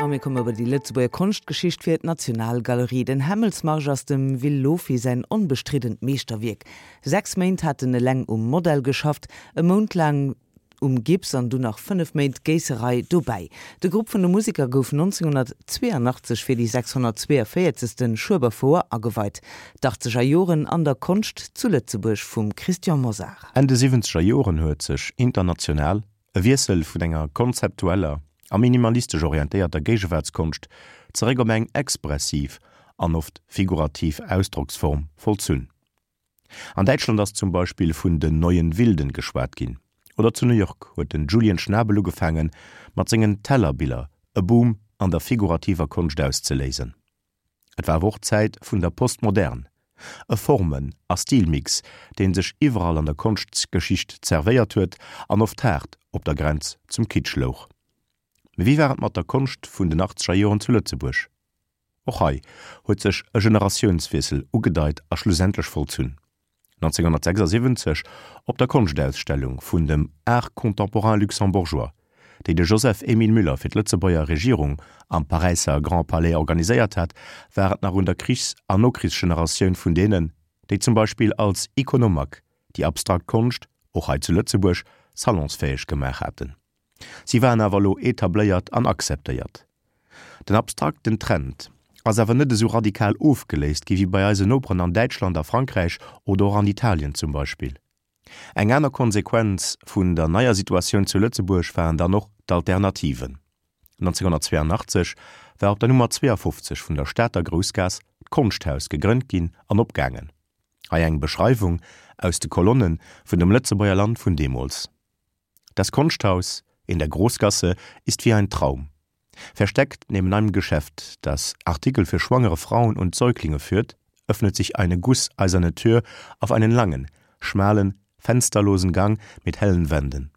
A mir komme bei déi Lëtzebuerger Konschtgeschicht fir d'Nationalgalerie. Den Hämmelsmarsch ass dem Will Lofy säin onbestriddent Meeschterwierk. 6 Méint hat en eleng um Modell geschafft, e Mount laang um Gips an dunn nach 5 Méint Géisserei dobäi. De Grupp vun de Museker gouf 1982 fir déi 642. Schueberfouer ageweit. D'Achtzeger Joren an der Konscht zu Lëtzebuerg vum Christian Mosar. Enn de siwwenzeger Joren huet sech international e Wiessel vun enger konzeptueller a minimalistesch orientéierter Géigewaartskonscht zeréck op eng expressiv an oft figurativ Ausdrocksform vollzunn. An Däitschland ass zum Beispill vun den Neuen Wilden geschwat ginn, oder zu New York huet den Julian Schnabel ugefaangen, mat sengen Tellerbiller e Boom an der figurativer Konscht auszeléisen. Et war awer och d'Zäit vun der Postmodern, e Formen a Stilmix, dee sech iwwerall an der Konschtgeschicht zerwéiert huet an oft haart op der Grenz zum Kitsch louch. Mee wéi war et mat der Konscht vun den achtzeger Joren zu Lëtzebuerg? Och hei huet sech e Generatiounswiessel ugedeit a schlussendlech vollzunn. 1976 op der Konschtausstellung vun dem Art contemporain luxembourgeois, déi de Joseph-Émile Müller fir d'Lëtzebuerger Regierung am Paräisser Grand Palais organiséiert hat, war et nach un der Krichs an Nokrichsgeneratioun vun deenen, déi zum Beispill als Iconomac déi abstrakt Konscht och hei zu Lëtzebuerg salonsfäeg gemaach haten. Si waren awer elo etabléiert an akzeptéiert. Den abstrakten Trend ass awer net esou radikal ofgeléist gi wéi bei eisen Noperen an Däitschland, a Frankräich oder och an Italien zum Beispill. Eng aner Konsequenz vun der neier Situatioun zu Lëtzebuerg waren dann och d'Alternativen. 1982 war op der Nummer 52 vun der Stater Groussgaass d'Konschthaus gegrënnt ginn an opgaangen. Hei eng Beschreiwung aus de Kolonne vun dem Lëtzebuerger Land vun deemools. Das Kunsthaus in der Großgasse ist wie ein Traum. Versteckt neben einem Geschäft, das Artikel für schwangere Frauen und Säuglinge führt, öffnet sich eine gusseiserne Tür auf einen langen, schmalen, fensterlosen Gang mit hellen Wänden.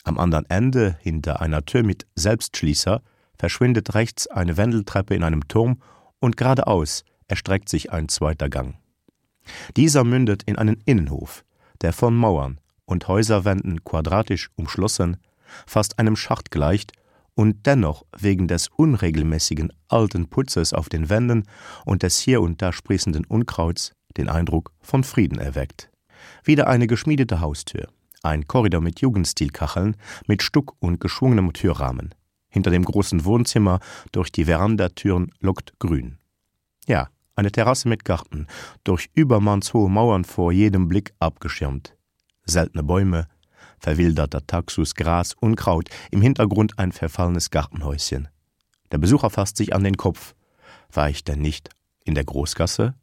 Am anderen Ende, hinter einer Tür mit Selbstschließer, verschwindet rechts eine Wendeltreppe in einem Turm und geradeaus erstreckt sich ein zweiter Gang. Dieser mündet in einen Innenhof, der von Mauern und Häuserwänden quadratisch umschlossen, fast einem Schacht gleicht und dennoch wegen des unregelmäßigen alten Putzes auf den Wänden und des hier und da sprießenden Unkrauts den Eindruck von Frieden erweckt. Wieder eine geschmiedete Haustür, ein Korridor mit Jugendstilkacheln, mit Stuck und geschwungenem Türrahmen. Hinter dem großen Wohnzimmer durch die Verandatüren lockt Grün. Ja, eine Terrasse mit Garten, durch übermannshohe Mauern vor jedem Blick abgeschirmt. Seltene Bäume, verwilderter Taxus, Gras, Unkraut, im Hintergrund ein verfallenes Gartenhäuschen. Der Besucher fasst sich an den Kopf. War ich denn nicht in der Großgasse?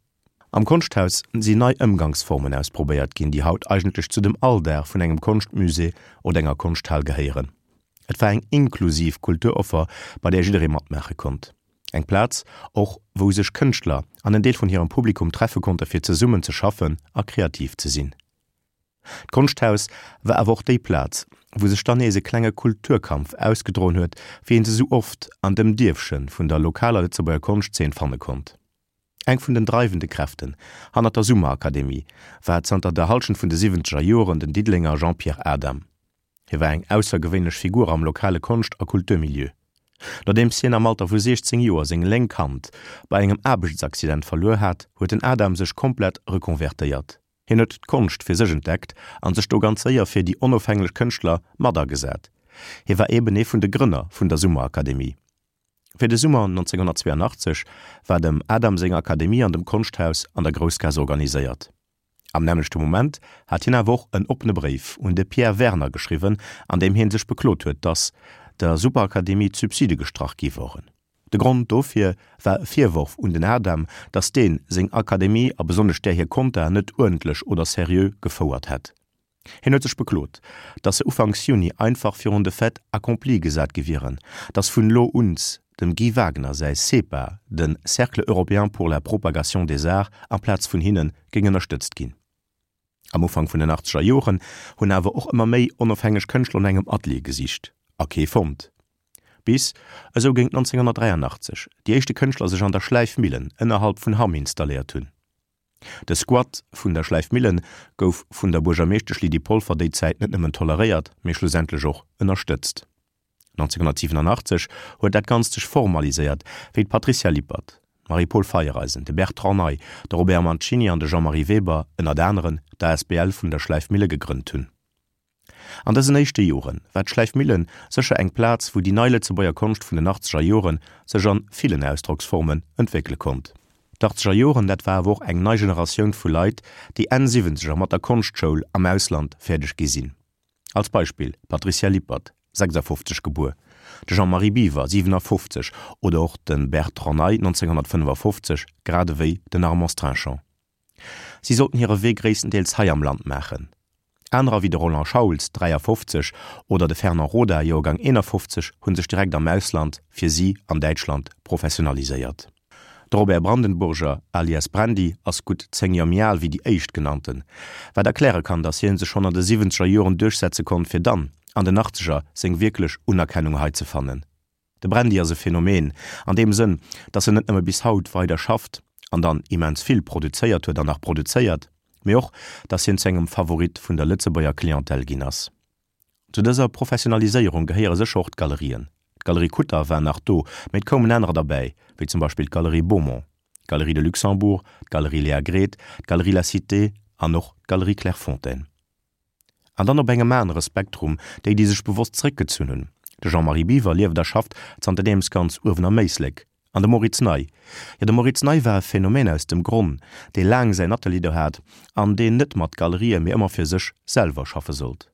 Am Konschthaus sinn nei Ëmgangsformen ausprobéiert ginn, déi haut eigentlech zu dem Alldag vun engem Konschtmusée oder enger Konschthal gehéieren. Et war eng inklusiv Kulturoffer, bei där jidderee matmaache konnt. Eng Plaz och, wou sech Kënschtler an en Deel vun hirem Publikum treffe konnte fir zesummen ze schaffen a kreativ ze sinn. D'Konschthaus war awer och déi Plaz, wou sech dann nees e klenge Kulturkampf ausgedroen huet, wéi een se sou oft an dem Dierfche vun der lokaler Lëtzebuerger Konschtzeen fanne konnt. Eng vun den dreiwende Kräften hannert der Summerakademie war zanter der Hallschent vun de siwwenzeger Joren den Diddelenger Jean-Pierre Adam. Hie war eng aussergewéinlech Figur am lokale Konscht a Kulturmilieu. Nodeems hien am Alter vu 16 Joer seng lénk Hand bei engem Aarbechtsaccident verluer hat, huet den Adam sech komplett rekonvertéiert. Hien huet d'Konscht fir sech entdeckt a sech do ganz séier fir déi onofhänglech Kënschtler mat agesat. Hie war eben ee vun de Grënner vun der Summerakademie. Fir de Summer 1982 war dem Adam seng Akademie an dem Konschthaus an der Groussgaass organiséiert. Am nämmlechte Moment hat hien awer och en oppene Bréif un de Pierre Werner geschriwwen, an deem hie sech beklot huet, datt der Superakademie d'Subside gestrach gi woren. De Grond dofir war e Virworf un den Adam, datt dee seng Akademie a besonnesch där hir Kontaen net uerdentlech oder seriö gefouert hätt. Hien huet sech beklot, datt se ufanks Juni einfach virun de Fait accompli gesat gi wieren, datt vun elo uns dem Guy Wagner säi CEPA, de Cercle européen pour la propagation des arts, amplaz vun hinne géing ënnerstëtzt ginn. Am Ufank vun den achtzeger Joren hunn awer och ëmmer méi onofhängeg Kënschtler no engem Atelier gesicht a kee fonnt. Bis, esou géint 1983, déi éischte Kënschtler sech an der Schläifmillen ënnerhalb vun Hamm installéiert hunn. De Squat vun der Schläifmillen gouf vun der Buergermeeschtesch Lydie Polfer déi Zäit net nëmmen toleréiert, mee schlussendlech och ënnerstëtzt. 1987 huet dat Ganzt sech formaliséiert, wéi d'Patricia Lippert, d'Marie-Paule Feiereisen, de Bertrand Ney, de Robert Mancini an de Jean-Marie Weber ënnert aneren d'ASBL vun der Schläifmille gegrënnt hunn. An dësen éischte Jore war d'Schläifmillen sécher eng Plaz, wou déi nei Lëtzebuerger Konscht vun den achtzeger Jore sech an villen Ausdrocksformen entwéckele konnt. D'Achtzeger Joren, dat war awer och eng nei Generatioun vu Leit, déi Enn Siwwenzeger mat der Konschtschoul am Ausland fäerdeg gi sinn. Als Beispill d'Patricia Lippert, 56 gebuer, de Jean-Marie Biwer, 57, oder och de Bertrand Ney, 1955, grad ewéi den Armand Strinchon. Si sollten hire Wee gréisstendeels hei am Land maachen. Anerer wéi de Roland Schauls, 53, oder de Fernand Roda, Joergang 51, hu sech direkt am Ausland, fir si an Däitschland, professionaliséiert. De Robert Brandenburger, alias Brandy, ass gutt 10 Joer méi al wéi déi éischtgenannten, wat erkläre kann, datt hie sech schonn an de siwwenzeger Joren duerchsetze konnt, fir dann an den Achtzeger seng wierklech Unerkennung hei ze fannen. De Brandy ass e Phänomen an deem Sënn, datt en net nëmme bis haut weider schafft an dann immens vill produzéiert huet an nach produzéiert, mee och, datt hien zu engem Favorit vun der Lëtzebuerger Clientèle ginn ass. Zu dëser Professionaliséierung gehéiere sécher och d'Galerien. D'Galerie Kutter war nach do, mee et koumen anerer derbäi, wéi zum Beispill d'Galerie Beaumont, d'Galerie de Luxembourg, d'Galerie Léa Gret, d'Galerie La Cité an och d'Galerie Clairefontaine. An dann op engem anere Spektrum déi, déi sech bewosst zeréckgezunn hunn. De Jean-Marie Biwer lieft a schafft zanterdeems ganz uewen am Éislek. An de Moritz Ney? Jo, de Moritz Ney war e Phänomen aus dem Gronn, dee laang säin Atelier do hat an deen net mat Galerië mee ëmmer fir sech selwer schaffe sollt.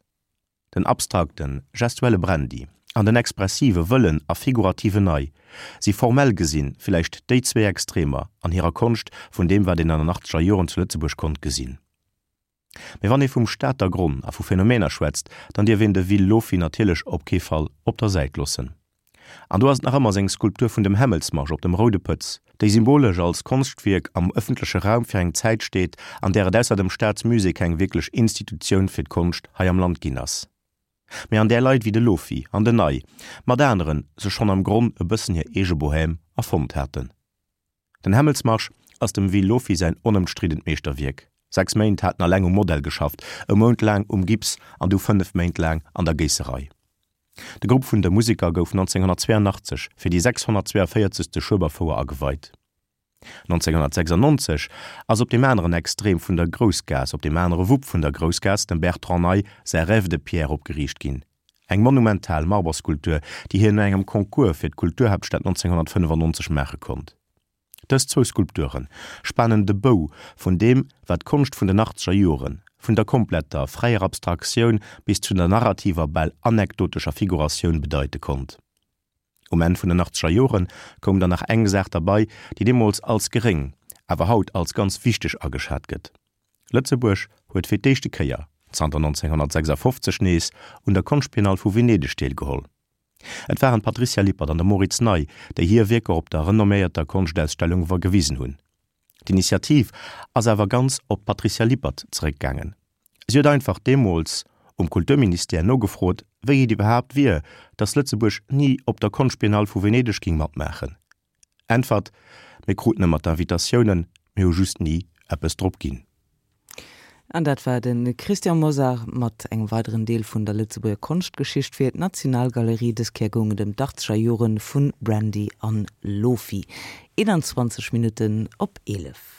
Den abstrakten, gestuelle Brandy an den expressive, wëllen a figurativen Ney si formell gesinn villäicht déi zwee Extremer an hirer Konscht vun deem wat een an den achtzeger Joren zu Lëtzebuerg konnt gesinn. Mee wann ee vum Stater Gronn a vu Phänomener schwätzt, dann dierf een de Will Lofy natierlech op kee Fall op der Säit loossen. An do ass et nach ëmmer seng Skulptur vun dem Hämmelsmarsch op dem Roude Pëtz, déi symbolesch als Konschtwierk am ëffentleche Raum fir eng Zäit steet, an där et ausser dem Staatsmusée keng wierklech Institutioun fir d'Konscht hei am Land ginn ass, mee an där Leit wéi de Lofy an den Ney mat aneren sech schonn am Gronn e bëssen hir eege Bohème erfonnt haten. Den Hämmelsmarsch ass dem Will Lofy säin onëmstriddent Meeschterwierk. Sechs Méint hat en alleng um Modell geschafft, e Mount laang um Gips an du 5 Méint laang an der Géisserei. De Grupp vun de Museker gouf 1982 fir déi 642. Schueberfouer ageweit. 1996 ass op deem aneren Extrem vun der Groussgaass, op deem anere Wupp vun der Groussgaass, dem Bertrand Ney säi Rêve de pierre opgeriicht ginn. Eng monumental Marberskulptur, déi hien no engem Concours fir d'Kulturhaaptstad 1995 maache konnt. Dës zwou Skulpture spanen de Bou vun deem, wat d'Konscht vun den achtzeger Joren, vun der kompletter, fräier Abstraktioun bis zu der narrativer, bal anekdotescher Figuratioun bedeite konnt. Um Enn vun den achtzeger Jore koum dann nach eng Saach derbei, déi deemools als geréng, awer haut als ganz wichteg ageschat gëtt, Lëtzebuerg huet fir d'éischte Kéier zanter 1956 nees un der Konschtbiennale vu Venedeg deelgeholl. Et waren d'Patricia Lippert an de Moritz Ney, déi hir Wierker op der renomméierter Konschtausstellung gewisen hunn. D'Initiativ ass awer ganz op d'Patricia Lippert zeréckgaangen. Si huet einfach deemools um Kulturministère nogefrot, wéi et iwwerhaapt wier, datt Lëtzebuerg ni op der Konschtbiennale vu Venedeg ging matmaachen. Äntwert, Mir kruten ëmmer d'Invitatiounen, mir hu just ni eppes drop ginn. An dat war de Christian Mosar mat engem weideren Deel vun der Lëtzebuerger Konschtgeschicht fir d'Nationalgalerie. Dës Kéier goung et ëm d'Achtzeger Jore vu Brandy an Lofi. 21 Minutten op 11.